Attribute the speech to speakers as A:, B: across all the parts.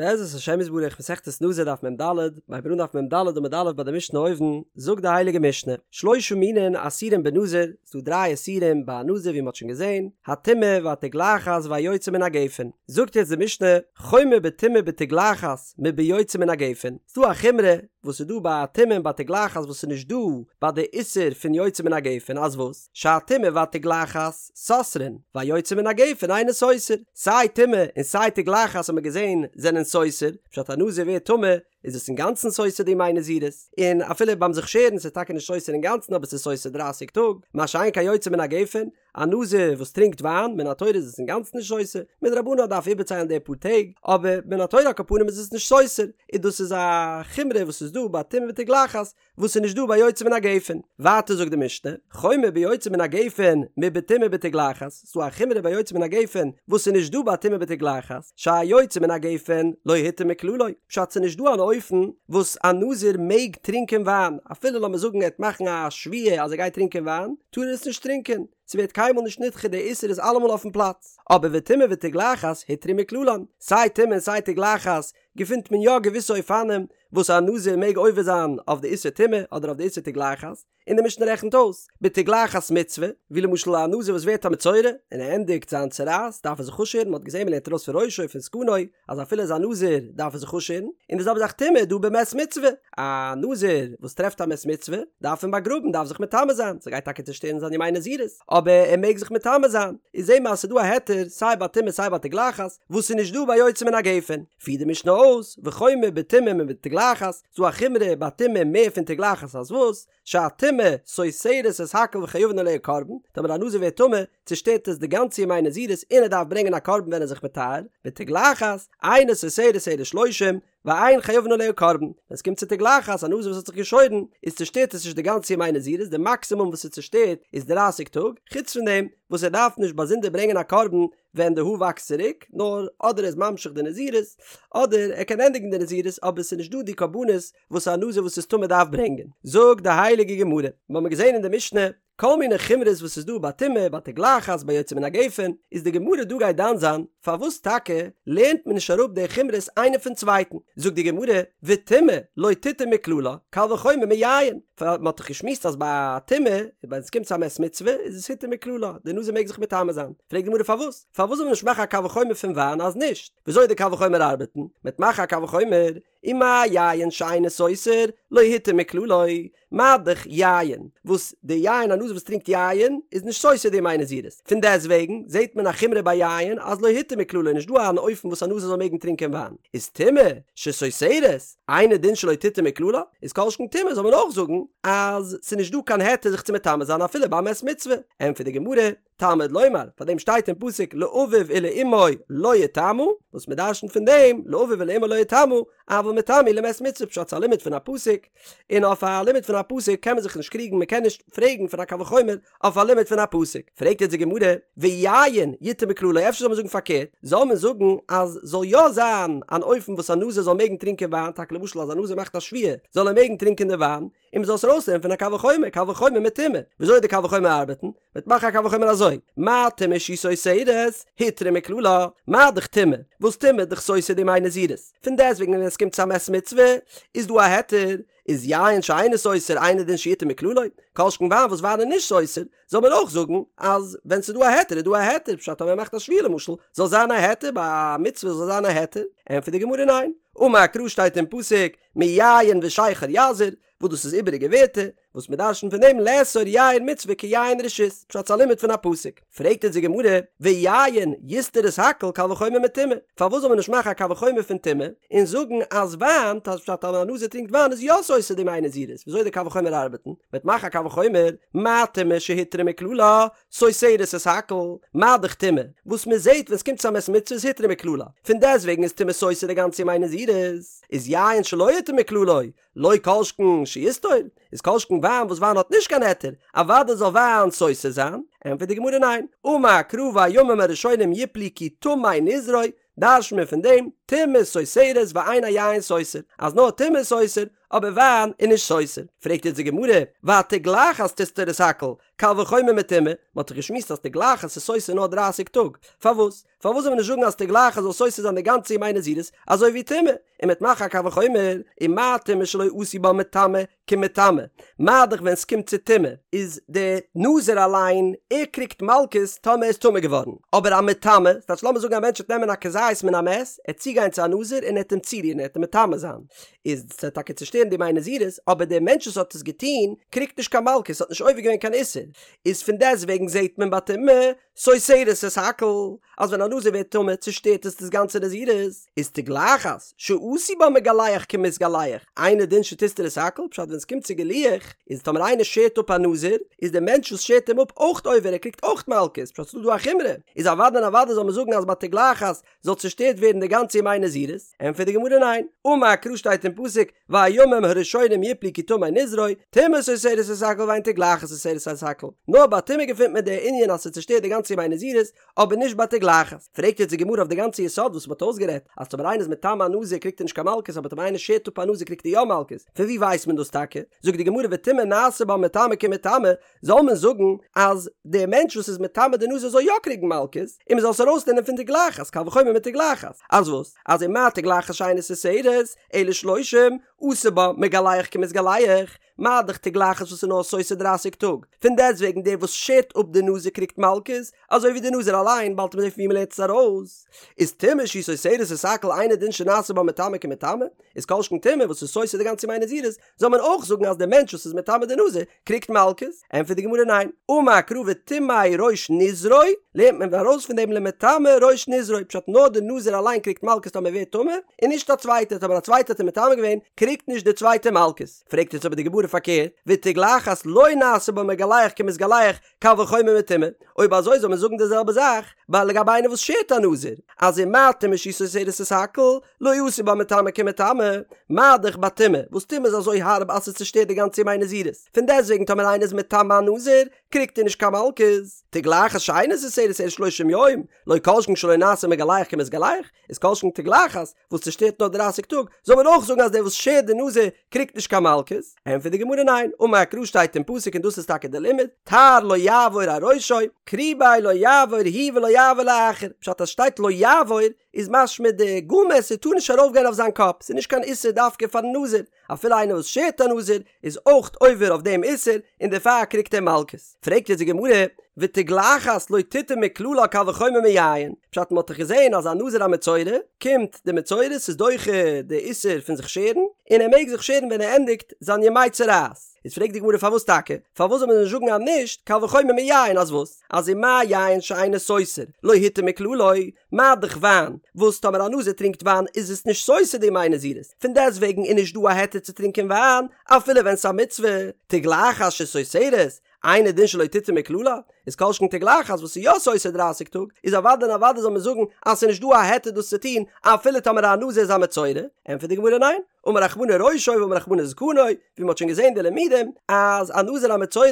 A: בעזרת השם יתברך מסכת נזיר דף מ"ד, מ'הייבט אן דף מ"ד עמוד א' ביי די משנה אויבן, זאגט די הייליגע משנה, שלושה מינין אסורים בנזיר, ס'דא דריי איסורים ביי א נזיר ווי מ'האט שוין געזען, הטומאה והתגלחת והיוצא מן הגפן, זאגט יעצט די משנה, חומר בטומאה ובתגלחת מביוצא מן הגפן, ס'דא א חומרא וואס איז דא ביי א טומאה און ביי תגלחת וואס איז נישט דא ביי די איסור פון יוצא מן הגפן, אז וואס? שהטומאה והתגלחת סותרין, והיוצא מן הגפן אינו סותר, סיי טומאה און סיי תגלחת האט מען געזען זענען סותר, פשט א נזיר ווערט טמא איז עס אינגאנצן סותר די ימי נזירות, און אפילו ביים זיך שערן ס'איז טאקע נישט סותר אינגאנצן אבער ס'איז סותר דרייסיג טאג, מה שאין כן יוצא מן הגפן, א נזיר וואס טרינקט וויין, מן התורה איז עס אינגאנצן נישט סותר, מדרבנן דארף איבערציילן די פאר טעג, אבער מן התורה על כל פנים איז עס נישט סותר, און דאס איז א חומרא וואס איז דא ביי טומאה ותגלחת, וואס איז נישט דא ביי יוצא מן הגפן. ווייטער זאגט די משנה, חומר ביוצא מן הגפן מבטומאה ובתגלחת, ס'איז דא א חומרא ביי יוצא מן הגפן וואס איז נישט דא ביי טומאה ותגלחת, שהיוצא מן הגפן לא הותר מכללו, פשט ס'איז נישט דא אן אופן וואס א נזיר מעג טרינקען וויין, אפילו לאמיר זאגן ער וועט מאכן א שבועה אז ער גייט טרינקען וויין, טאר ער עס נישט טרינקען, ס'ווערט קיינמאל נישט נדחה די איסור איז אלעמאל אויפן פלאץ. אבער וטומאה ותגלחת הותרו מכללן, סיי טומאה און סיי תגלחת געפינט מען יא געוויסע אופנים וואס א נזיר מעג עובר זיין אויף די איסור טומאה אדער אויף די איסור תגלחת, און די משנה רעכנט אויס, בתגלחת מצוה, ווי למשל א נזיר וואס ווערט א מצורע און ער ענדיגט זיין צרעת דארף ער זיך אפשערן, מען האט געזען מען לערנט ארויס פון ראשו פון זקנו אז אפילו איז א נזיר דארף ער זיך אפשערן, און די זעלבע זאך טומאה דא במת מצוה, א נזיר וואס טרעפט א מת מצוה דארף אים באגראבן דארף זיך מטמא זיין, ס'גייט טאקע צושטערן זיין ימי נזירות אבער ער מעג זיך מטמא זיין, איז זעהן מיר אז ס'איז דא א היתר סיי ביי טומאה סיי ביי תגלחת וואס איז נישט דא ביי יוצא מן הגפן. פירט די משנה אויס, וחומר בטומאה מבתגלחת, ס'דא א חומרא ביי טומאה מער פון תגלחת אז וואס? שהטומאה סותרת את הכל וחייבין עליה קרבן, טאמער א נזיר ווערט טמא, צושטערט עס די גאנצע ימי נזירות און ער דארף ברענגען א קרבן ווען ער איז זיך מטהר, ותגלחת, אינה סותרת אלא שלושים, ואין חייבין עליה קרבן, ווען עס קומט צו תגלחת, א נזיר וואס האט זיך געשוירן, איז צושטערט עס נישט די גאנצע ימי נזירות, די מאקסימום וואס עס צושטערט איז דרייסיג טאג, חוץ פון דעם וואס ער דארף נישט באזונדער ברענגען א קרבן ווען די האר וואקסט צוריק, נאר אדער ער איז ממשיך די נזירות, אדער ער קען ענדיגן די נזירות אבער עס איז נישט דא די קרבנות וואס א נזיר וואס איז טמא דארף ברענגען. זאגט די הייליגע גמרא, מיר האבן געזען אין די משנה כל מיני חומרות וואס איז דא ביי טומאה, ביי תגלחת, ביי יוצא מן הגפן, איז די גמרא דא גייט דן זיין פארוואס טאקע לערנט מען נישט אראפ די חומרות איינע פון צווייטן, זאגט די גמרא, וטומאה לא תותר מכללה, קל וחומר מיין, פאר מען האט דאך געשמועסט אז ביי טומאה, ווען עס קומט צו א מת מצוה, איז עס הותר מכללה, די נזיר מעג זיך מטמא זיין. פרעגט די גמרא פארוואס? פארוואס זאל מען נישט מאכן א קל וחומר פון וויין אז נישט? וויאזוי די קל וחומר ארבעטן? מען וועט מאכן א קל וחומר, ומה יין שאינו סותר, לא הותר מכללו, מה דאך יין, וואס די יין א נזיר וואס טרינקט יין איז נישט סותר די ימי נזירות, פון דעסט וועגן זעט מען א חומרא ביי יין אז לא הותר מכללו נישט דא אן אופן וואס א נזיר זאל מעגן טרינקען וויין, איז טומאה שסותרת, אינו דין שלא תותר מכללה, איז כל שכן טומאה זאל מען אויך זאגן אז ס'איז נישט דא קיין היתר זיך צו מטמא זיין אפילו ביי מת מצוה, ענטפערט די גמרא, תלמוד לומר, פאר דעם שטייט אין פסוק לאביו ולאמו לא יטמא, וואס מען דרשנ'ט פון דעם לאביו ולאמו לא יטמא, אבל מטמא הוא למת מצוה פשט ס'איז א לימוד פון א פסוק, און אויף א לימוד פון א פסוק קען מען זיך נישט קריגן מען קען נישט פרעגן פון א קל וחומר אויף א לימוד פון א פסוק, פרעגט יעצט די גמרא, ויין יותר מכללו אפשר זאל מען זאגן פארקערט, זאל מען זאגן אז זאל יא זיין אן אופן וואס א נזיר זאל מעגן טרינקען וויין, טאקע למשל אז א נזיר מאכט א שבועה זאל ער מעגן טרינקען די וויין, און מ'זאל עס ארויסלערנען פון א קל וחומר, קל וחומר מטומאה, וויאזוי די קל וחומר ארבעטן, מ'וועט מאכן א קל וחומר אזוי, מה טומאה שהיא סותרת, הותרה מכללה, מה דאך טומאה, וואס טומאה איז דאך סותר די ימי נזירות, פון דעסטוועגן ווען עס קומט צו א מת מצוה, איז דא א היתר, איז יין שאינו סותר אינו דין שיותר מכללו, כל שכן וויין וואס וויין איז נישט סותר, זאל מען אויך זאגן אז ווען ס'איז דא א היתר איז דא א היתר, פשט אז מען מאכט א שבועה למשל, זאל זיין א היתר, ביי א מצוה זאל זיין א היתר, ענטפערט די גמרא ניין, אמר קרא שטייט אין פסוק, מיין ושכר יזיר, וואס דאס איז איבעריגע ווערטער, וואס מען דרשנ'ט פון דעם לאסור יין מצוה כיין רשות, פשט ס'איז א לימוד פון א פסוק. פרעגט אונז די גמרא, ויין יסתור את הכל קל וחומר מטומאה, פארוואס זאל מען נישט מאכן א קל וחומר פון טומאה, און זאגן אז וויין, פשט אז א נזיר טרינקט וויין איז יא סותר די ימי נזירות, וויאזוי די קל וחומר ארבעטן, מ'וועט מאכן א קל וחומר, מה טומאה שהותרה מכללה, סותרת את הכל, מה דאך טומאה, וואס מען זעט ווען ס'קומט צו א מת מצוה איז הותרה מכללה, פון דעסטוועגן איז טומאה סותר די גאנצע ימי נזירות, איז יין שלא הותר מכללו, לא כל שכן שיסתור, איז כל שכן וויין וואס וויין האט נישט קיין היתר, אוודאי זאל וויין סותר זיין, ענטפערט די גמרא ניין, אמר קרא והימים הראשונים יפלו כי טמא נזרו, דרש'נט מען פון דעם, טומאה סותרת ואין היין סותר, אז נאר טומאה איז סותר, אבער וויין איז נישט סותר. פרעגט יעצט די גמרא, והתגלחת תסתור את הכל, קל וחומר מטומאה, מען האט דאך געשמועסט אז תגלחת איז סותר נאר דרייסיג טאג, פארוואס? פארוואס זאל מען נישט זאגן אז תגלחת זאל סותר זיין די גאנצע ימי נזירות אזוי ווי טומאה, און מ'וועט מאכן א קל וחומר, ומה טומאה שלא עשו בה מטמא כמטמא, מה דאך ווען ס'קומט צו טומאה איז די נזיר אליין ער קריגט מלקות טאמער ער איז טמא געווארן, אבער א מטמא, ס'טייטש לאמיר זאגן א מענטש וועט נעמען א כזית מן המת, ער וועט צוגיין צו א נזיר און ער וועט אים צורירן ער וועט אים מטמא זיין, איז ס'וועט טאקע צושטערן די ימי נזירות, אבער דער מענטש וואס האט עס געטון קריגט נישט קיין מלקות, האט נישט עובר געווען קיין איסור, איז פון דעסט וועגן זעט מען ביי טומאה סותרת את הכל, אז ווען א נזיר ווערט טמא צושטערט עס דאס גאנצע נזירות, איז תגלחת שעשו בה מגלח כמתגלח, אינו דין שתסתור את הכל, פשט ווען עס קומט צו גילוח, איז טאמער איינער שערט אפ א נזיר, איז דער מענטש וואס שערט אים אפ אויך עובר, ער קריגט אויך מלקות, פשט ס'איז דא דא א חומרא, איז אוודאי און אוודאי זאל מען זאגן אז ביי תגלחת זאל צושטערט ווערן די גאנצע ימי נזירות, ענטפערט די גמרא ניין, אמר קרא שטייט אין פסוק והימים הראשונים יפלו כי טמא נזרו, טומאה סותרת את הכל ואין תגלחת סותרת את הכל, נאר ביי טומאה געפינט מען די ענין אז ס'צושטערט די גאנצע ימי נזירות, אבער נישט ביי תגלחת. פרעגט יעצט די גמרא אויף די גאנצע יסוד וואס מ'האט אויסגערעדט, אז טאמער איינער איז מטמא א נזיר קריגט ער נישט קיין מלקות אבער טאמער איינער שערט אפ א נזיר קריגט ער יא מלקות, פון וואו ווייסט מען דאס טאקע? זאגט די גמרא וטומאה נעשה בה מטמא כמטמא, זאל מען זאגן אז דער מענטש וואס איז מטמא די נזיר זאל יא קריגן מלקות, און מען זאל עס ארויסלערנען פון תגלחת, קל וחומר מתגלחת, אז וואס? אז ומה תגלחת שאינה סותרת, אלא שלושים, עשה בה מגלח כמתגלח, מה דאך תגלחת וואס איז נאר סותר דרייסיג טאג, פון דעסטוועגן דער וואס שערט אפ די נזיר קריגט מלקות, אזוי ווי די נזיר אליין, באלד וועט מען זען פון ווי מען לערנט עס ארויס, איז טומאה שהיא סותרת את הכל אינו דין שנעשה בה מטמא כמטמא, איז כל שכן טומאה וואס איז סותר די גאנצע ימי נזירות, זאל מען אויך זאגן אז דער מענטש וואס איז מטמא די נזיר קריגט מלקות? ענטפערט די גמרא ניין, אמר קרא וטמא ראש נזרו, לערנט מען ארויס פון דעם למטמא ראש נזרו, פשט נאר די נזיר אליין קריגט מלקות טאמער ווערט טמא, און נישט א צווייטער, טאמער א צווייטער האט אים מטמא געווען קריגט נישט דער צווייטער מלקות. פרעגט יעצט אבער די גמרא פארקערט, ותגלחת לא נעשה בה מגלח כמתגלח, קל וחומר מטומאה, אויב אזוי זאל מען זאגן די זעלבע זאך ביי לגבי איינער וואס שערט א נזיר, אז ומה טומאה שהיא סותרת את הכל, לא עשו בה מטמא כמטמא, מה דאך ביי טומאה, וואס טומאה איז אזוי הארב אז עס צושטערט די גאנצע ימי נזירות, פון דעסטוועגן טאמער איינער איז מטמא א נזיר, קריגט ער נישט קיין מלקות. תגלחת שאינה סותרת אלא שלושים יום, לא כל שכן שלא נעשה מגלח כמתגלח, איז כל שכן תגלחת, וואס צושטערט נאר דרייסיג טאג, זאל מען אויך זאגן אז דער וואס שערט די נזיר קריגט נישט קיין מלקות? ענטפערט די גמרא ניין, אמר קרא שטייט אין פסוק און דאס איז טאקע די לימוד, תער לא יעבור על ראשו, קרובהו לא יעבור הוא ולא יעבור לאחר, פשט אז שטייט לא יעבור איז משמע די גאל מעסער טאר נישט ארויף גיין אויף זיין קאפ, ס'איז נישט קיין איסור דווקא פארן נזיר, אפילו איינער וואס שערט א נזיר איז אויך עובר אויף דעם איסור און דערפאר קריגט ער מלקות. פרעגט יעצט די גמרא, ותגלחת לא תותר מכללה קל וחומר מיין, פשט מ'האט דאך געזען אז א נזיר א מצורע, קומט די מצורע ס'איז דוחה די איסור פון זיך שערן, און ער מעג זיך שערן ווען ער ענדיגט זיין ימי צרעת. איז פרעגט די גמרא פארוואס טאקע? פארוואס זאל מען נישט זאגן אז נישט קל וחומר מיין אז וואס? אז ומה יין שאינו סותר לא הותר מכללו, מה דאך וויין, וואס טאמער א נזיר טרינקט וויין איז עס נישט סותר די ימי נזירות, פון דעסט וועגן איז נישט דא א היתר צו טרינקען וויין אפילו ווען ס'איז א מצוה, תגלחת שסותרת, אינו דין שלא תותר מכללה, איז כל שכן תגלחת וואס איז יא סותר דרייסיג טאג, איז אוודאי און אוודאי זאל מען זאגן אז ס'איז נישט דא א היתר דאס צו טון אפילו טאמער א נזיר איז א מצורע, ענטפערט די גמרא ניין, אמר רחמנא ראשו ואמר רחמנא זקנו, ווי מ'האט שוין געזען די לימודים אז א נזיר א מצורע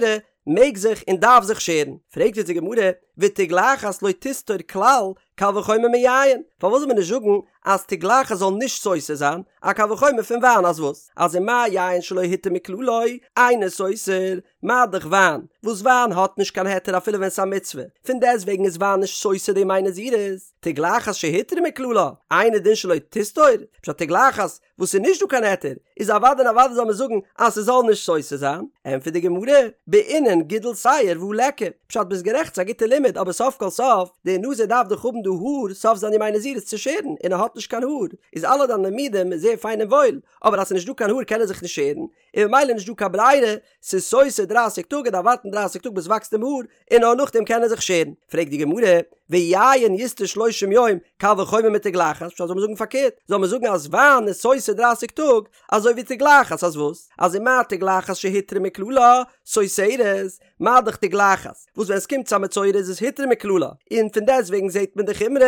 A: מעג זיך און דארף זיך שערן, פרעגט יעצט די גמרא, ותגלחת לא תסתור כלל, קל וחומר מיין, פארוואס זאל מען נישט זאגן אז תגלחת זאל נישט סותר זיין, א קל וחומר פון וויין אז וואס? אז ומה יין שלא הותר מכללו, אינו סותר, מה דאך וויין, וואס וויין האט נישט קיין היתר אפילו ווען ס'איז א מצוה, פון דעסטוועגן איז וויין נישט סותר די ימי נזירות, תגלחת שהותרה מכללה, אינו דין שלא תסתור, פשט תגלחת וואס איז נישט דא קיין היתר, איז אוודאי און אוודאי זאל מען זאגן אז ס'זאל נישט סותר זיין, ענטפערט די גמרא, בעינן גידול שער והא ליכא, פשט ביסט גערעכט ס'איז א גוטע לימוד אבער סוף כל סוף, דער נזיר דארף דאך האבן די האר סוף זיין ימי נזירות צו שערן און ער האט נישט קיין האר, איז אלע דיינע לימודים איז זייער פיין און וואויל, אבער אז ס'איז נישט דא קיין האר קען ער זיך נישט שערן, און ממילא נישט דא קיין ברירה, ס'איז סותר דרייסיג טאג ער דארף ווארטן דרייסיג טאג ביז ס'וואקסט אים האר, און נאר נאכדעם קען ער זיך שערן. פרעגט די גמרא, ויין יסתור שלושים יום, קל וחומר מתגלחת, פשט זאל מען זאגן פארקערט, זאל מען זאגן אז וויין איז סותר דרייסיג טאג, אזוי ווי תגלחת, אז וואס? אז ומה תגלחת שהותרה מכללה, סותרת, מה דאך תגלחת, וואס ווען עס קומט צו א מצורע איז עס הותרה מכללה, און פון דעסטוועגן זעט מען די חומרא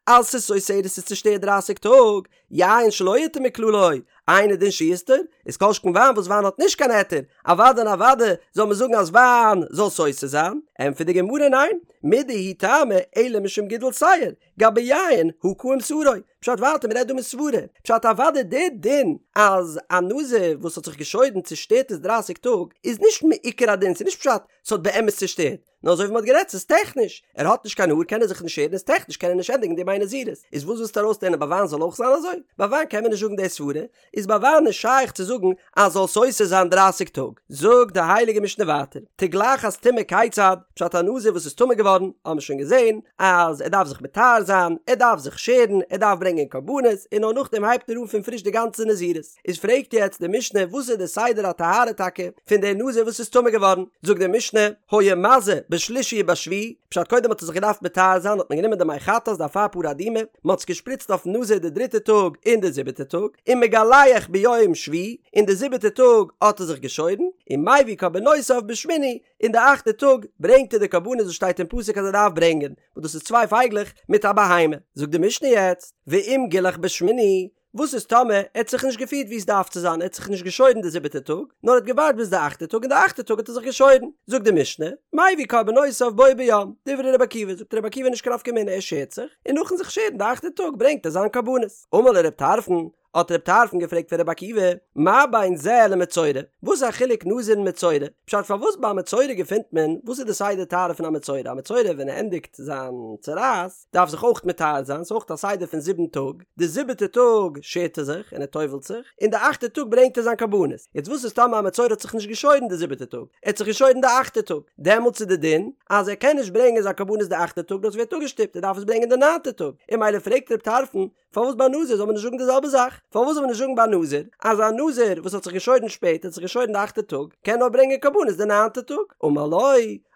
A: אז ס'איז סותרת ס'איז צושטערט דרייסיג טאג, יין שלא הותר מכללו, אינו דין שיסתור, איז כל שכן וויין וואס וויין האט נישט קיין היתר, אוודאי און אוודאי זאל מען זאגן אז וויין זאל סותר זיין, ענטפערט די גמרא ניין, מידי הוא טעמא אלא משום גידול שער, גבי יין הא קאים שערו, פשט ווייטער מ'רעדט דא מסברה, פשט אוודאי די דין אז א נזיר וואס האט זיך געשוירן צושטערט עס דרייסיג טאג איז נישט מעיקר הדין ס'איז נישט פשט ס'האט באמת צושטערט, נאר אזוי ווי מ'האט גערעדט ס'איז טעכניש, ער האט נישט קיין האר קען ער זיך נישט שערן איז טעכניש קען ער נישט ענדיגן די ימי נזירות, איז וואס ווילסטו ארויסלערנען ביי וויין זאל אויך זיין אזוי? ביי וויין קען מען נישט זאגן די סברה, איז ביי וויין נישט שייך צו זאגן אז זאל סותר זיין דרייסיג טאג. זאגט די הייליגע משנה ווייטער, תגלחת טומאה כיצד, פשט א נזיר וואס איז טמא געווארן, האבן מיר שוין געזען אז ער דארף זיך מטהר זיין, ער דארף זיך שערן, ער דארף ברענגען קרבנות, און נאר נאכדעם הייבט ער אן פון פריש די גאנצע נזירות. איז פרעגט יעצט די משנה וואס איז די סדר הטהרה טאקע פון די נזיר וואס איז טמא געווארן, זאגט די משנה, היה מזה בשלישי ובשביעי, פשט קודם האט ער זיך געדארפט מטהר זיין האט מען גענומען די מי חטאת די אפר פרה אדומה, מען האט עס געשפריצט אויפן נזיר די דריטע טאג און די זיבעטע טאג, ומגלח ביום שביעי, און די זיבעטע טאג האט ער זיך געשוירן, ומביא קרבנותיו בשמיני, און די אכטע טאג ברענגט ער די קרבנות וואס שטייט אין פסוק אז ער דארף ברענגען, וואס דאס איז צוויי פייגלעך מיט א בהמה. זאגט די משנה יעצט, ואם גילח בשמיני, וואס איז טאמער ער האט זיך נישט געפירט ווי עס דארף צו זיין, ער האט זיך נישט געשוירן די זיבעטע טאג, נאר ער האט געווארט ביז די אכטע טאג און די אכטע טאג האט ער זיך געשוירן, זאגט די משנה, מביא קרבנותיו בו ביום, דברי רבי עקיבא, זאגט רבי עקיבא נישט קיין נפקא מינה ער שערט זיך, און נאכן זיך שערן די אכטע טאג ברענגט ער זיין קרבנות. אמר לו רב טרפון, האט רב טרפון געפרעגט פון רבי עקיבא, מה בין זה למצורע, וואס איז א חילוק נזיר און מצורע? פשט פארוואס ביי א מצורע געפינט מען, וואס איז די סדר טהרה פון א מצורע? א מצורע ווען ער ענדיגט זיין צרעת, דארף זיך אויך מטהר זיין, ס'איז אויך א סדר פון זיבן טאג, די זיבעטע טאג שערט ער זיך און ער טובל'ט זיך, און די אכטע טאג ברענגט ער זיין קרבנות. יעצט וואס איז טאמער א מצורע האט זיך נישט געשוירן די זיבעטע טאג, ער האט זיך געשוירן די אכטע טאג, דעמאלטס איז די דין אז ער קען נישט ברענגען זיין קרבנות די אכטע טאג, דאס ווערט אפגעשטופט, ער דארף עס ברענגען די ניינטע טאג, און ממילא פרעגט רב טרפון, פארוואס ביי נזיר זאל מען נישט זאגן די זעלבע זאך? פארוואס זאל מען נישט זאגן ביי נזיר אז א נזיר וואס האט זיך געשוירן שפעט האט זיך געשוירן די אכטע טאג קען נאר ברענגען קרבנות די ניינטע טאג? אמר לו,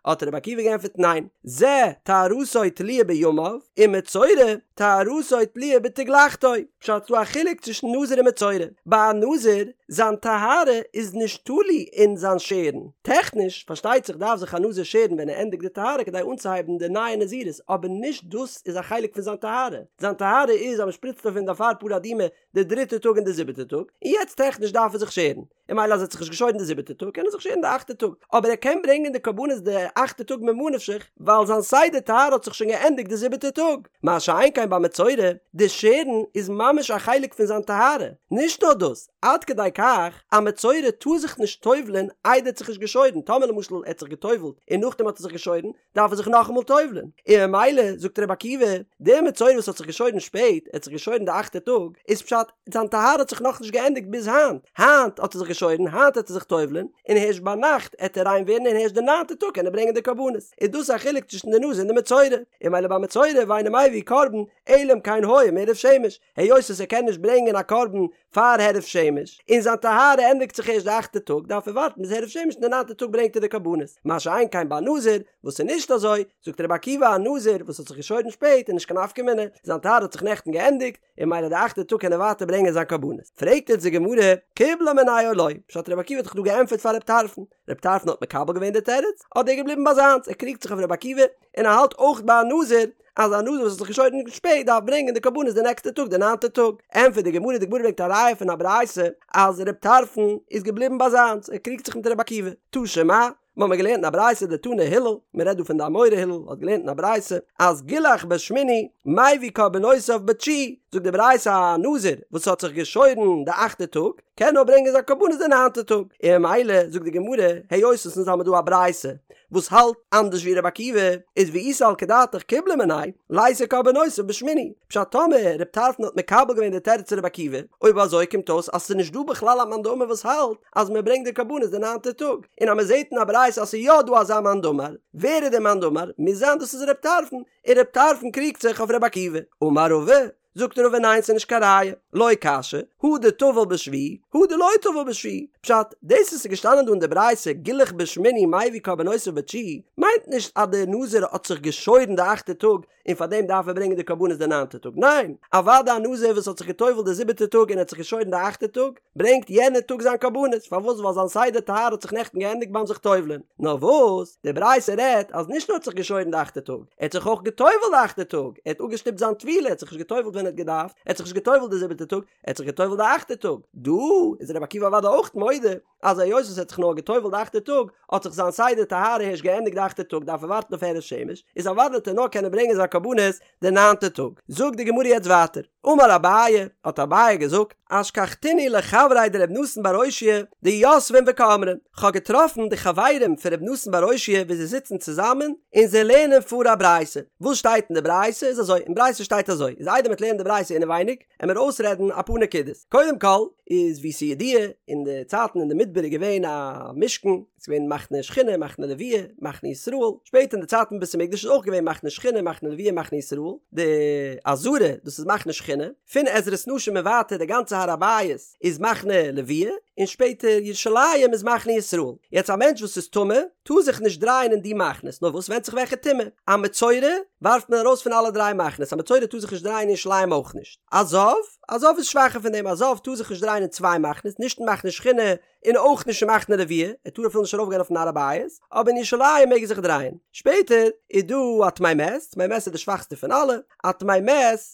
A: האט רבי עקיבא געענטפערט ניין, זה טהרתו תלויה בימיו, ומצורע טהרתו תלויה בתגלחתו, פשט ס'דא א חילוק צווישן נזיר און מצורע, ביי א נזיר זיין טהרה איז נישט תלוי אין זיין שערן, טעכניש פארשטייט זיך דארף זיך א נזיר שערן ווען ער ענדיגט די טהרה כדי אנצוהייבן די נייע נזירות אבער נישט דאס איז א חלק פון זיין טהרה, זיין טהרה איז אז מ'שפריצט אויף אים די אפר פרה אדומה די דריטע טאג און די זיבעטע טאג, און יעצט טעכניש דארף ער זיך שערן, און ממילא אז ער האט זיך נישט געשוירן די זיבעטע טאג קען ער זיך שערן די אכטע טאג, אבער ער קען ברענגען די קרבנות די אכטע טאג ממה נפשך ווייל זיין סדר טהרה האט זיך שוין געענדיגט די זיבעטע טאג, מה שאין כן ביי מצורע, די שערן איז ממש א חלק פון זיין טהרה, נישט נאר דאס, עד כדי כך א מצורע טאר זיך נישט טובל'ען איידער ער האט זיך נישט געשוירן, טאמער למשל ער האט זיך געטובל'ט און נאכדעם האט ער זיך געשוירן, דארף ער זיך נאכאמאל טובל'ען, און ממילא זאגט רבי עקיבא, דער מצורע וואס האט זיך געשוירן שפעט, ער האט זיך געשוירן די אכטע טאג, איז פשט, זיין טהרה האט זיך נאכנישט געענדיגט ביז היינט, היינט האט ער זיך געשוירן, היינט העט ער זיך טובל'ען, און הערשט ביינאכט העט ער ריין ווערן און הערשט די ניינטע טאג קען ער ברענגען די קרבנות, איז דאס א חילוק צווישן די נזיר און די מצורע, און ממילא ביי מצורע ואינו מביא קרבן, אלא אם כן היה מעורב שמש, היות וואס ער קען נישט ברענגען א קרבן פאר הערב שמש, און זיין טהרה ענדיגט זיך ערשט די אכטע טאג, דארף ער ווארטן ביז הערב שמש און די ניינטע טאג ברענגט ער די קרבנות. מה שאין כן ביי נזיר, וואס איז נישט אזוי, זאגט רבי עקיבא א נזיר וואס האט זיך געשוירן שפעט איז נישט קיין נפקא מינה, זיין טהרה האט זיך נעכטן געענדיגט, און ממילא די אכטע טאג קען ער ווייטער ברענגען זיין קרבנות. פרעגט יעצט די גמרא, קיבלה מיניה או לא, פשט רבי עקיבא האט דאך דא געענטפערט פאר רב טרפון, רב טרפון האט מקבל געווען די תירוץ, אדער ער איז געבליבן ביי זיינס, ער קריגט זיך אויף רבי עקיבא, און ער האלט אויך ביי א נזיר, אז א נזיר וואס האט זיך געשוירן שפעט דארף ברענגען די קרבנות די נעקסטע טאג די ניינטע טאג, ענטפערט די גמרא, די גמרא ברענגט א ראיה פון א ברייתא אז רב טרפון איז געבליבן ביי זיינס, ער קריגט זיך מיט רבי עקיבא, תא שמע, מיר האבן געלערנט אין א ברייתא דתני הלל, מען רעדט דא פון די אמורא הלל האט געלערנט אין א ברייתא אז גילח בשמיני מביא קרבנותיו בתשיעי, זאגט די ברייתא א נזיר וואס האט זיך געשוירן די אכטע טאג קען נאר ברענגען זיין קרבנות די ניינטע טאג, און ממילא זאגט די גמרא היות עס אונז האמיר דא א ברייתא וואס האלט אנדערש ווי רבי עקיבא, איז ואי סלקא דעתך קיבלה מיניה, ליתי קרבנותיו בשמיני, פשט טאמער רב טרפון האט מקבל געווען די תירוץ פון רבי עקיבא, אויב אזוי קומט אויס אז ס'איז נישט דא בכלל א מאן דאמר וואס האלט אז מען ברענגט די קרבנות די ניינטע טאג, און אז מען זעט אין א ברייתא אז ס'איז יא דא אזא מאן דאמר, ווער איז דער מאן דאמר? מוז זיין דאס איז רב טרפון, און רב טרפון קריגט זיך אויף רבי עקיבא. אמר רבא, זאגט רבא ניין ס'איז נישט קיין ראיה, לא קשיא, הא דטבל בשביעי, הא דלא טבל בשביעי, פשט, דאס וואס איז געשטאנען דא אין די ברייתא גילח בשמיני מביא קרבנותיו בתשיעי, מיינט נישט אז דער נזיר האט זיך געשוירן די אכטע טאג און פאר דעם דארף ער ברענגען די קרבנות די ניינטע טאג, ניין, אוודאי א נזיר וואס האט זיך געטובלט די זיבעטע טאג און האט זיך געשוירן די אכטע טאג, ברענגט יענע טאג זיין קרבנות, פארוואס ווייל זיין סדר טהרה האט זיך נעכטן געענדיגט ביים זיך טובל'ען, נאר וואס, די ברייתא רעדט אז נישט נאר האט זיך געשוירן די אכטע טאג, ער האט זיך אויך געטובלט די אכטע טאג, ער האט אפגעשטופט זיין טבילה, ער האט זיך נישט געטובלט ווען ער האט געדארפט, ער האט זיך נישט געטובלט די זיבעטע טאג, ער האט זיך געטובלט די אכטע טאג. דא איז רבי עקיבא אוודאי אויך מודה. מודה אז היות וואס ער האט זיך נאר גע'טובל'ט די אכטע טאג האט זיך זיין סדר טהרה הערשט געענדיגט די אכטע טאג דארף ער ווארטן אויף הערב שמש, איז אוודאי וועט ער נאר קענען ברענגען זיין קרבנות די ניינטע טאג. זאגט די גמרא יעצט ווייטער, אמר אביי, האט אביי געזאגט, אשכחתינהו לחבריה דרבי נתן בר אושעיא דיתבין וקאמרי, כ'האב געטראפן די חברים פון רבי נתן בר אושעיא ווי זיי זיצן צוזאמען און זיי לערנען פאר א ברייתא, וואס שטייט אין די ברייתא איז אזוי, אין ברייתא שטייט אזוי, איז איידער מ'וועט לערנען די ברייתא אינעווייניג, עמיר אויסרעדן אפאר נקודות. קודם כל, איז ווי ס'איז ידוע, אין די צייטן אין די מדבר איז געווען א משכן, ס'איז געווען מחנה שכינה, מחנה לוויה, מחנה ישראל, שפעטער אין די צייטן בית המקדש איז אויך געווען מחנה שכינה, מחנה לוויה, מחנה ישראל, די עזרה, דאס איז מחנה שכינה, פון עזרת נשים און ווייטער די גאנצע הר הבית איז מחנה לוויה, און שפעטער ירושלים איז מחנה ישראל. יעצט א מענטש וואס איז טמא, טאר זיך נישט דרייען אין די מחנות, נאר וואס ווענדט זיך וועלכע טומאה, א מצורע ווארפט מען ארויס פון אלע דריי מחנות, א מצורע טאר זיך נישט דרייען אין ירושלים אויך נישט, א זב, א זב איז שוואכער פון דעם, א זב טאר זיך נישט דרייען אין צוויי מחנות, נישט אין מחנה שכינה און אויך נישט אין מחנה לוויה, ער טאר אפילו נישט ארויפגיין אויפן הר הבית, אבער אין ירושלים מעג ער זיך דרייען. שפעטער איז דא א טמא מת, טמא מת איז די שוואכסטע פון אלע, א טמא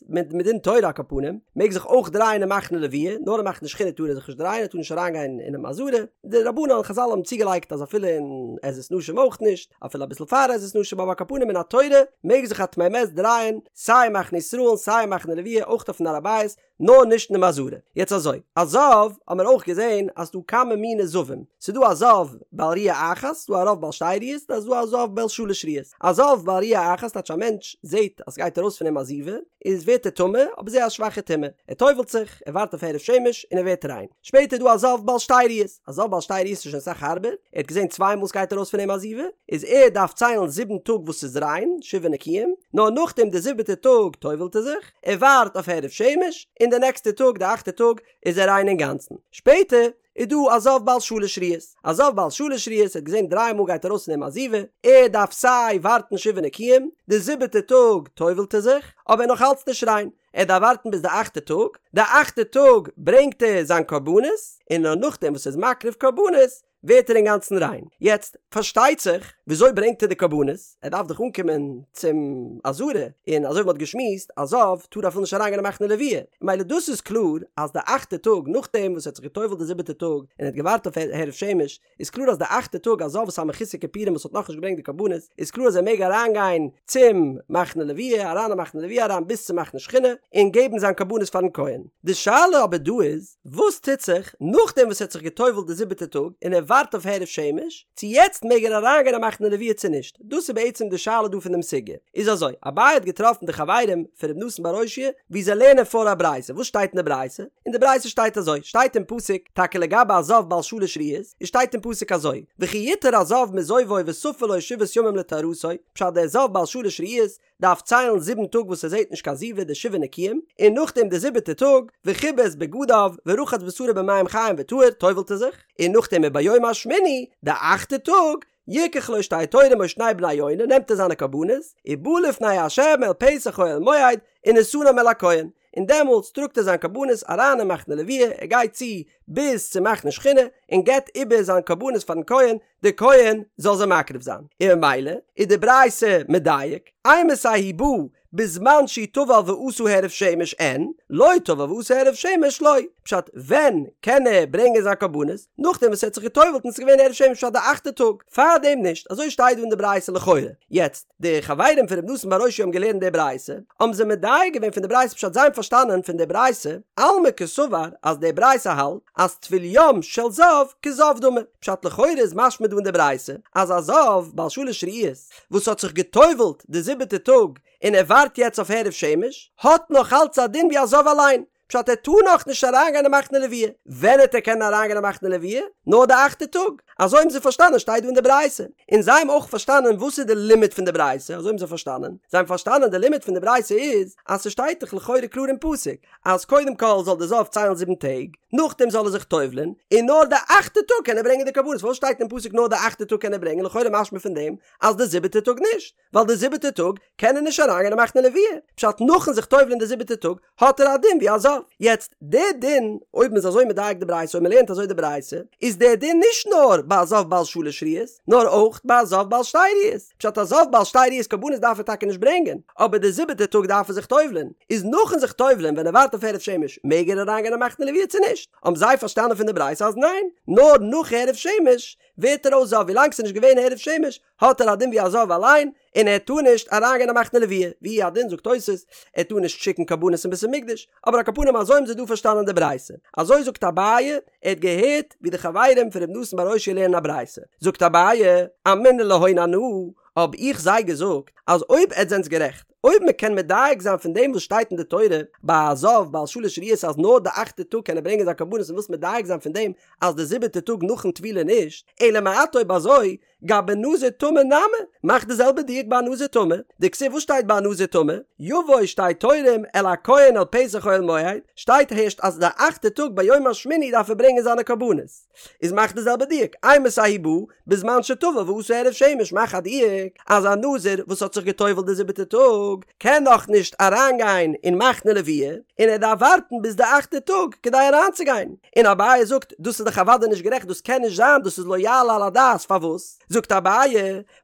A: מת, מדין תורה על כל פנים, מעג זיך אויך דרייען אין מחנה לוויה, נאר אין מחנה שכינה טאר ער זיך נישט דרייען, ער טאר נישט אריינגיין אינעם עזרה, די רבנן און חזל האבן צוגעלייגט אז אפילו אין עזרת נשים אויך נישט, אפילו אביסל פאר עזרת נשים, אבער על כל פנים מן התורה מעג זיך א טמא מת דרייען סיי אין מחנה ישראל און סיי אין מחנה לוויה אויך אויפן הר הבית, נאר נישט אינעם עזרה. יעצט אזוי, א זב האמיר אויך געזען אז ס'דא כמה מיני זבים, ס'דא א זב בעל ראיה אחת, ס'דא א זב בעל שתי ראיות, און ס'דא א זב בעל שלש ראיות. א זב בעל ראיה אחת טייטש א מענטש זעט אז ס'גייט ארויס פון אים א זיבה, איז ווערט ער טמא, אבער זייער א שוואכע טומאה. ער טובל'ט זיך, ער ווארט אויף הערב שמש, און ער ווערט ריין. שפעטער איז דא א זב בעל שתי ראיות. א זב בעל שתי ראיות איז שוין אסאך הארבער, ער האט געזען צוויי מאל ס'גייט ארויס פון אים א זיבה, איז ער דארף ציילן זיבן טאג וואס ס'איז ריין, שבעה נקיים, נאר נאכדעם די זיבעטע טאג טובל'ט ער זיך, ער ווארט אויף הערב שמש, און די נעקסטע טאג, די אכטע טאג, איז ער ריין אינגאנצן. שפעטער איז דא א זב בעל שלש ראיות. א זב בעל שלש ראיות האט געזען דריי מאל גייט ארויס פון אים א זיבה, ער דארף סיי ווארטן שבעה נקיים, די זיבעטע טאג טובל'ט ער זיך, אבער נאך אלץ נישט ריין, ער דארף ווארטן ביז די אכטע טאג, די אכטע טאג ברענגט ער זיין קרבנות, און נאר נאכדעם וואס ער איז מקריב קרבנות, ווערט ער אינגאנצן ריין. יעצט, פארשטייט זיך, וויאזוי ברענגט ער די קרבנות? ער דארף דאך אנקומען צום עזרה, און אזוי ווי מ'האט געשמועסט, א זב טאר אפילו נישט אריינגיין אין מחנה לוויה. ממילא דאס איז קלאר אז די אכטע טאג, נאכדעם וואס ער האט זיך גע'טובל'ט די זיבעטע טאג, און ער האט געווארט אויף הערב שמש, איז קלאר אז די אכטע טאג א זב וואס איז א מחוסר כיפורים וואס האט נאכנישט געברענגט די קרבנות, איז קלאר אז ער מעג אריינגיין צום מחנה לוויה, אריין אין מחנה לוויה אריין ביז צום מחנה שכינה, און געבן זיין קרבנות פארן כהן. די שאלה אבער דא איז, וואס טוט זיך נאכדעם וואס ער האט זיך גע'טובל'ט די זיבעטע טאג און ער ווארט אויף הערב שמש, צו יעצט מעג ער אריינגיין אין מחנה לוויה צו נישט? דאס איז בעצם די שאלה דא פון דעם סוגיא. איז אזוי, אביי האט געטראפן די חברים פון ר' נתן בר אושעיא ווי זיי לערנען פאר א ברייתא, וואס שטייט אין די ברייתא? אין די ברייתא שטייט אזוי, שטייט אין פסוק, טאקע לגבי א זב בעל שלש ראיות, איז שטייט אין פסוק אזוי, וכי יטהר הזב מזובו וספר לו שבעת ימים לטהרתו, פשט דער זב בעל שלש ראיות דארף ציילן זיבן טאג וואס ער זעט נישט קיין זיבה די שבעה נקיים, און נאכדעם די זיבעטע טאג, וכבס בגדיו ורחץ בשרו במים חיים וטהר, טובל'ט ער זיך, און נאכדעם וביום השמיני, די אכטע טאג, יקח לו שתי תורים או שני בני יונה, נעמט ער זיינע קרבנות, ובא לפני ה' אל פתח אוהל מועד, ונתנם אל הכהן, און דעמאלטס טראגט ער זיין קרבנות אריין אין מחנה לוויה, ער גייט צו ביז צום מחנה שכינה, און געבט איבער זיין קרבנות פארן כהן, דער כהן זאל זיי מקריב זיין, און ממילא איז די ברייתא מדייק, אימתי הוא בא בזמן שהוא טבל ועשה הערב שמש אין, לא טבל ועשה הערב שמש לא, פשט ווען קען ער ברענגען זיין קרבנות, נאכדעם וואס ער האט זיך געטובלט און עס איז געווען הערב שמש פשט די אכטע טאג, פארדעם נישט, אזוי שטייט דא אין די ברייתא לכאורה, יעצט די חברים פון ר' נתן בר אושעיא האבן געלערנט די ברייתא, האבן זיי מדייק געווען פון די ברייתא פשט זיי האבן פארשטאנען פון די ברייתא, אלמא קסבר אז די ברייתא האלט אז טבול יום של זב כזב דמי, פשט לכאורה איז משמע דא אין די ברייתא אז א זב בעל שלש ראיות וואס האט זיך גע'טובל'ט די זיבעטע טאג און ער ווארט יעצט אויף הערב שמש האט נאך אלץ א דין ווי א זב אליין, פשט ער טאר נאך נישט אריינגיין אין מחנה לוויה, ווען העט ער קענען אריינגיין אין מחנה לוויה? נאר די אכטע טאג, אזוי האבן זיי פארשטאנען שטייט דא אין די ברייתא, און זיי האבן אויך פארשטאנען וואס איז די לימוד פון די ברייתא, אזוי האבן זיי פארשטאנען, זיי האבן פארשטאנען די לימוד פון די ברייתא איז אז ס'שטייט דאך לכאורה קלאר אין פסוק אז קודם כל זאל די זב ציילן זיבן טעג, נאכדעם זאל ער זיך טובל'ען, און נאר די אכטע טאג קען ער ברענגען די קרבנות, פארוואס שטייט אין פסוק נאר די אכטע טאג קען ער ברענגען, לכאורה משמע פון דעם אז די זיבעטע טאג נישט, ווייל די זיבעטע טאג קען ער נישט אריינגיין אין מחנה לוויה, פשט נאכן זיך טובל'ען די זיבעטע טאג האט ער א דין ווי א זב. יעצט די דין, אויב מ'איז אזוי מדייק די ברייתא, אויב מ'לערנט אזוי די ברייתא, איז די דין נישט נאר ביי א זב בעל שלש ראיות, נאר אויך ביי א זב בעל שתי ראיות. פשט א זב בעל שתי ראיות קרבנות דארף ער טאקע נישט ברענגען, אבער די זיבעטע טאג דארף ער זיך טובל'ען, איז נאכן זיך טובל'ען ווען ער ווארט אויף הערב שמש מעג ער אריינגיין אין מחנה לוויה צו נישט? נישט, האבן זיי פארשטאנען פון די ברייתא אז ניין, נאר נאך הערב שמש ווערט ער אויס זב, ווילאנג ס'איז נישט געווען הערב שמש האט ער א דין ווי א זב אליין, און ער טאר נישט אריינגיין אין מחנה לוויה, והוא הדין זאגט תוס', ער טאר נישט שיקן קרבנות אין בית המקדש, אבער על כל פנים אזוי האבן זיי דא פארשטאנען די ברייתא, אזוי זאגט אביי, ער האט געהערט ווי די חברים פון ר' נתן בר אושעיא לערנען א ברייתא, זאגט אביי, אמינא להון אנא, האב איך זיי געזאגט, אז אויב עטס זענטס גערעכט, אויב מען קען מדייק זיין פון דעם וואס שטייט אין די תורה ביי א זב בעל שלש ראיות אז נאר די אכטע טאג קען ער ברענגען זיין קרבנות און ווילסט מדייק זיין פון דעם אז די זיבעטע טאג נאכן טבילה נישט, אלא מעתה אויב אזוי גבי נזיר טמא נמי, מאך די זעלבע דיוק ביי א נזיר טמא, דכתיב וואס שטייט ביי א נזיר טמא? יבוא שתי תורים אל הכהן אל פתח אוהל מועד, שטייט הערשט אז די אכטע טאג ביום השמיני דארף ער ברענגען זיינע קרבנות. איז מאך די זעלבע דיוק, אימתי הוא בא, בזמן שטבל ועשה הערב שמש מאך א דיוק אז א נזיר וואס האט זיך גע'טובל'ט די זיבעטע טאג קען נאך נישט אריינגיין אין מחנה לוויה און ער דארף ווארטן ביז די אכטע טאג כדי אריינצוגיין, און אביי זאגט דאס איז דאך אוודאי נישט גערעכט דאס קען נישט זיין דאס איז לא יעלה על הדעת פארוואס זאגט אביי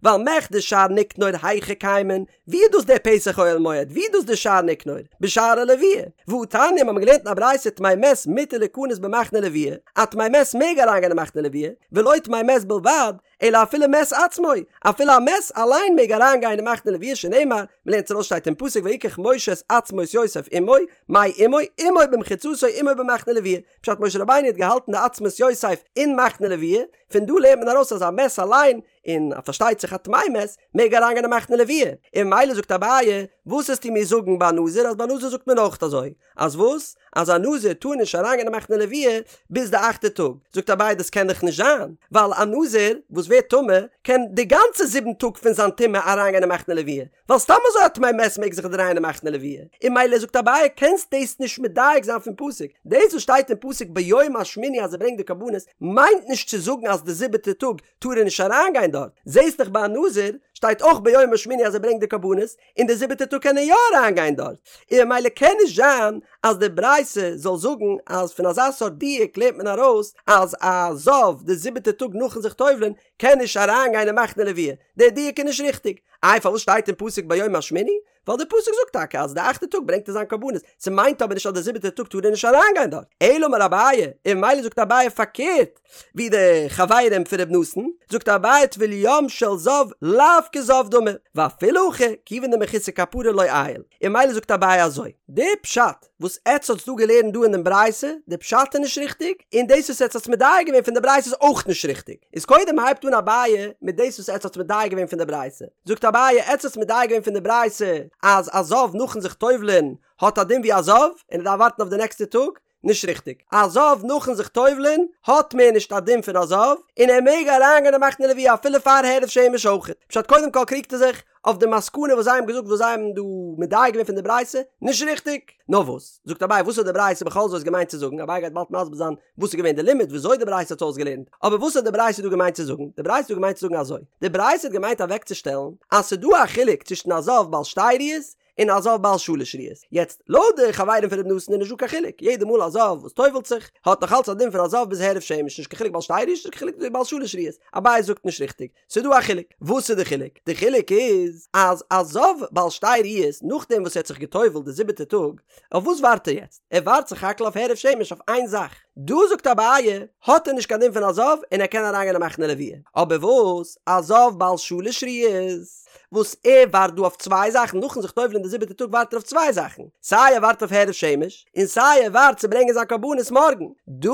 A: ווייל מכדי שער ניקנור היכא קיימין ווי איז דאס דער פתח אוהל מועד? ווי איז דאס דער שער ניקנור? בשערי לוויה. והתניא, מ'האמיר געלערנט אין א ברייתא טמא מת מותר ליכנס במחנה לוויה, א טמא מת מעג אריינגיין אין מחנה לוויה, ולא טמא מת בלבד, אלא אפילו מת עצמו, אפילו א מת אליין מעג אריינגיין אין מחנה לוויה שנאמר, מ'לערנט ארויס שטייט אין פסוק ויקח משה את עצמות יוסף עמו, מאי עמו, עמו במחיצתו עמו במחנה לוויה, פשט משה רבינו האט געהאלטן די עצמות יוסף אין מחנה לוויה, פון דא לערנט מען ארויס אז א מת אליין און פארשטייט זיך א טמא מת מעג אריינגיין אין מחנה לוויה, און ממילא זאגט אביי, וואס וועסטו מיר זאגן ביי נזיר אז ביי נזיר זאגט מען אויך אזוי, אז וואס? אז א נזיר טאר נישט אריינגיין אין מחנה לוויה ביז די אכטע טאג, זאגט אביי דאס קען דאך נישט זיין, ווייל א נזיר וואס ווערט טמא קען די גאנצע זיבן טאג פון זיין טומאה אריינגיין אין מחנה לוויה, ווייל סתם אזוי א טמא מת מעג זיך דרייען אין מחנה לוויה, און ממילא זאגט אביי קענסט דאס נישט מדייק זיין פון פסוק, דאס וואס שטייט אין פסוק ביום השמיני אז ער ברענגט די קרבנות מיינט נישט צו זאגן אז די זיבעטע טאג טאר ער נישט אריינגיין דארט, זעהסט דאך ביי א נזיר שטייט אויך ביום השמיני אז ער ברענגט די קרבנות, און די זיבעטע טאג קען ער יא אריינגיין דארט, און ממילא קען נישט זיין אז די ברייתא זאל זאגן אז פון אזא סארט דיוק לערנט מען ארויס אז א זב די זיבעטע טאג נאכן זיך טובל'ען קען נישט אריינגיין אין מחנה לוויה, די דיוק איז נישט ריכטיג, איי פארוואס שטייט אין פסוק ביום השמיני? ווייל די פסוק זאגט טאקע אז די אכטע טאג ברענגט ער זיין קרבנות, ס'מיינט אבער נישט אז די זיבעטע טאג טאר ער נישט אריינגיין דארט, אלא אמר אביי, און ממילא זאגט אביי פארקערט ווי די חברים פון ר' נתן, זאגט אביי טבול יום של זב לאו כזב דמי, ואפילו הכי כיוון דמחוסר כפרה לא עייל, און ממילא זאגט אביי אזוי, די פשט וואס עטץ האטס דא געלערנט דא אין דעם ברייתא, די פשט איז נישט ריכטיג, און דאס וואס עטץ האטס מדייק געווען פון די ברייתא איז אויך נישט ריכטיג. איז קודם הייבט אן אביי מיט דאס וואס עטץ האטס מדייק געווען פון די ברייתא. זאגט אביי, עטץ האטס מדייק געווען פון די ברייתא אז א זב נאכן זיך טובל'ען האט א דין ווי א זב, און ער דארף ווארטן אויף די נעקסטע טאג, נישט ריכטיג. א זב נאכן זיך טובל'ען האט מער נישט א דין פון א זב, און ער מעג אריינגיין אין מחנה לוויה אפילו פאר הערב שמש אויכעט. פשט קודם כל קריגט ער זיך אויף די מסקנא וואס זיי האבן געזאגט וואס זיי האבן דא מדייק געווען פון די ברייתא, נישט ריכטיג. נאר וואס? זאגט אביי וואס האט די ברייתא בכל זאת געמיינט צו זאגן? אביי גייט באלד מסביר זיין וואס איז געווען די לימוד וויאזוי די ברייתא האט אויסגעלערנט, אבער וואס האט די ברייתא דא געמיינט צו זאגן? די ברייתא האט דא געמיינט צו זאגן אזוי, די ברייתא האט געמיינט אוועקצושטעלן אז ס'איז דא א חילוק צווישן א זב בעל שתי ראיות און א זב בעל שלש ראיות. יעצט, לויט די חברים פון ר' נתן איז נישט דא קיין חילוק, יעדע מאל א זב וואס טובל'ט זיך, האט נאך אלץ א דין פון א זב ביז הערב שמש, נישט קיין חילוק בעל שתי ראיות, נישט קיין חילוק בעל שלש ראיות. אביי זאגט נישט ריכטיג, ס'איז דא א חילוק. וואס איז די חילוק? די חילוק איז אז א זב בעל שתי ראיות נאכדעם וואס ער האט זיך געטובל'ט די זיבעטע טאג, אויף וואס ווארט ער יעצט? ער ווארט סך הכל אויף הערב שמש אויף איין זאך. דא זאגט אביי, האט ער נישט קיין דין פון א זב און ער קען אריינגיין אין מחנה לוויה. אבער וואס? א זב בעל שלש ראיות וואס ער ווארט דא אויף צוויי זאכן, נאכן זיך טובל'ען די זיבעטע טאג ווארט ער אויף צוויי זאכן, סיי ער ווארט אויף הערב שמש, און סיי ער ווארט צו ברענגען זיין קרבנות מארגן. דא,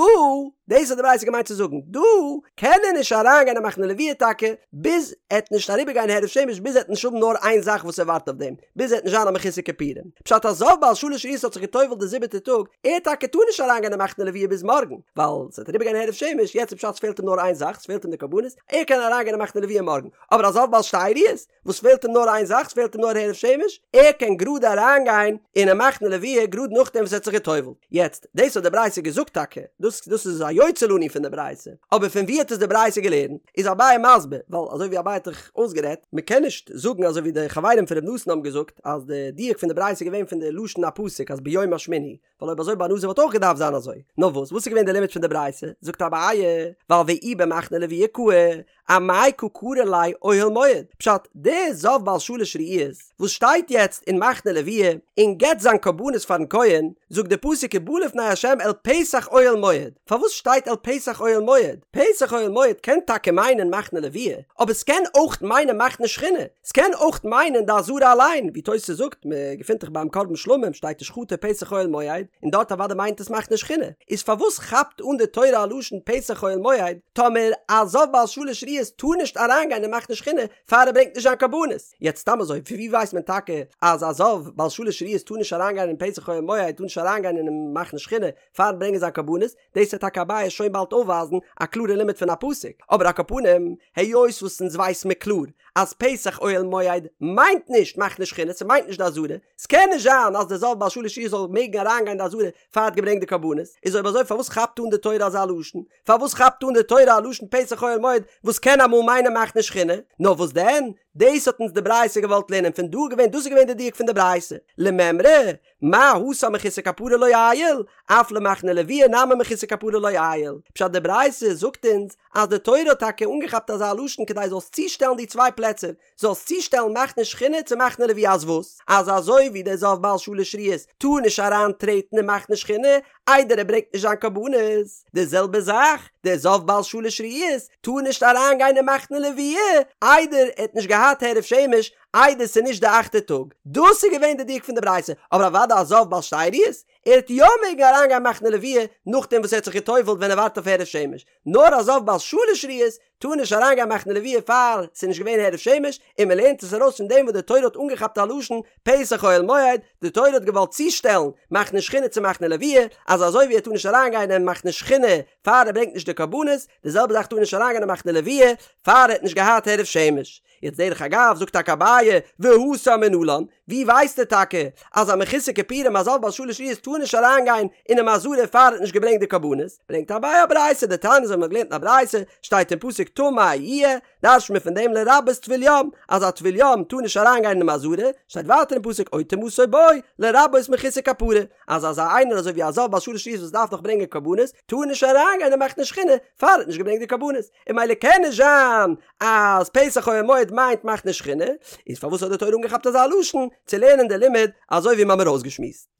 A: דאס האט די ברייתא געמיינט צו זאגן, דא קען ער נישט אריינגיין אין מחנה לוויה טאקע, ביז ער וועט נישט אריבערגיין הערב שמש, ביז ער וועט נישט האבן נאר איין זאך וואס ער ווארט אויף דעם, ביז ער וועט נישט זיין א מחוסר כיפורים. פשט א זב בעל שלש ראיות האט זיך געטובל'ט די זיבעטע טאג, ער טאקע טאר נישט אריינגיין אין מחנה לוויה ביז מארגן, ווייל ס'וועט אריבערגיין הערב שמש, יעצט איז פשט ס'פעלט אים נאר איין זאך, ס'פעלט אים די קרבנות, ער קען אריינגיין אין מחנה לוויה מארגן, אבער א זב בעל שתי ראיות, וואס פעלט אים נאר איין זאך, ס'פעלט אים נאר הערב שמש, ער קען גראד אריינגיין אינעם מחנה לוויה גראד נאכדעם וואס ער האט זיך גע'טובל'ט. יעצט, דאס האט די ברייתא געזאגט טאקע, דאס דאס איז א יוצא לנו פון די ברייתא, אבער פון ווי האט עס די ברייתא געלערנט? איז אביי מסביר, ווייל אזוי ווי אביי האט דאך אויסגערעדט, מען קען נישט זאגן אזוי ווי די חברים פון ר' נתן האבן געזאגט אז די דיוק פון די ברייתא איז געווען פון די לשון הפסוק אז ביום השמיני, ווייל אויב אזוי ביי נזיר וואלט אויך געדארפט זיין אזוי. נאר וואס, וואס איז געווען די לימוד פון די ברייתא? זאגט אביי, ווייל ואי במחנה לוויה קאי, אמאי קא קרי ליה אוהל מועד? פשט, דער זב בעל שלש ראיות וואס שטייט יעצט אין מחנה לוויה און געבט זיין קרבנות פארן כהן, זאגט די פסוק ובא לפני ה' אל פתח אוהל מועד. פארוואס שטייט אל פתח אוהל מועד? פתח אוהל מועד קען טאקע מיינען מחנה לוויה, אבער ס'קען אויך מיינען מחנה שכינה, ס'קען אויך מיינען די עזרה אליין, ווי תוס' זאגט, מ'געפינט דאך ביים קרבן שלמים שטייט ושחטו פתח אוהל מועד, און דארט אוודאי מיינט עס מחנה שכינה, איז פארוואס כאפט אן די תורה א לשון פתח אוהל מועד, טאמער א זב בעל שלש ראיות טאר נישט אריינגיין אין מחנה שכינה פאר ער ברענגט נישט זיין קרבנות? יעצט סתם אזוי, פון ווי ווייסט מען טאקע אז א זב בעל שלש ראיות טאר נישט אריינגיין אין פתח אוהל מועד, טאר נישט אריינגיין אינעם מחנה שכינה פארן ברענגען זיין קרבנות? דאס וועט טאקע אביי שוין באלד אויפווייזן א קלארע לימוד פון א פסוק, אבער על כל פנים, היות וואס אונז ווייס מיר קלאר אז פתח אוהל מועד מיינט נישט מחנה שכינה, ס'מיינט נישט די עזרה, ס'קען נישט זיין אז דער זב בעל שלש ראיות זאל מעגן אריינגיין די עזרה פאר האט געברענגט די קרבנות, איז אויב אזוי פארוואס כאפט אן די תורה אזא לשון? פארוואס כאפט אן די תורה א לשון פתח אוהל מועד וואס קען אמאל מיינען מחנה שכינה? נאר וואס דען? דאס האט אונז די ברייתא געוואלט לערנען פון דא געווען דאס איז געווען די דיוק פון די ברייתא למימרא מה התם מחוסר כפרה לא עייל, אף למחנה לוויה נמי מחוסר כפרה לא עייל. פשט די ברייתא זאגט אונז אז די תורה האט טאקע אנגעכאפט אזא לשון כדי זאלסט צושטעלן די צוויי פלעצער, זאלסט צושטעלן מחנה שכינה צו מחנה לוויה אז וואס? אז אזוי ווי דער זב בעל שלש ראיות טאר נישט אריין טרעטן אין מחנה שכינה איידער ער ברענגט נישט זיין קרבנות, די זעלבע זאך דער זב בעל שלש ראיות טאר נישט אריין גיין אין מחנה לוויה איידער ער האט נישט געהאט הערב שמש איידער ס'איז נישט די אכטע טאג. דאס איז געווען די דיוק פון די ברייתא, אבער אוודאי א זב בעל שתי ראיות, ער וועט יא מעגן אריינגיין מחנה לוויה נאכדעם וואס ער האט זיך גע'טובל'ט ווען ער ווארט אויף הערב שמש, נאר א זב בעל שלש ראיות טאר נישט אריינגיין מחנה לוויה פאר ס'איז נישט געווען הערב שמש, און מ'לערנט עס ארויס פון דעם וואס די תורה האט אנגעכאפט א לשון פתח אוהל מועד, די תורה האט געוואלט צושטעלן מחנה שכינה צו מחנה לוויה, אז אזוי ווי ער טאר נישט אריינגיין אין מחנה שכינה פאר ער ברענגט נישט די קרבנות, די זעלבע זאך טאר נישט אריינגיין אין מחנה לוויה פאר ער האט נישט געהאט הערב שמש. יעצט דרך אגב זאגט טאקע אביי והתם מנלן, ווי ווייסט ער טאקע אז א מחוסר כיפורים א זב בעל שלש ראיות טאר נישט אריינגיין אינעם עזרה פאר ער האט נישט געברענגט די קרבנות, ברענגט אביי א ברייתא דתניא אזוי ווי מ'האט געלערנט אין א ברייתא שטייט אין פסוק טמא יהיה, דרש'ט מען פון דעם לרבות טבול יום אז א טבול יום טאר נישט אריינגיין אינעם עזרה, שטייט ווייטער אין פסוק או טומאתו בו לרבות מחוסר כפרה, אז אזא איינער אזוי ווי א זב בעל שלש ראיות וואס דארף נאך ברענגען קרבנות טאר נישט אריינגיין אין מחנה שכינה פאר ער האט נישט געברענגט די קרבנות. און ממילא קען נישט זיין אז פתח אוהל מועד מיינט מחנה שכינה, איז פארוואס האט די תורה אנגעכאפט אזא לשון צו לערנען די לימוד אזוי ווי מ'האמיר אויסגעשמועסט?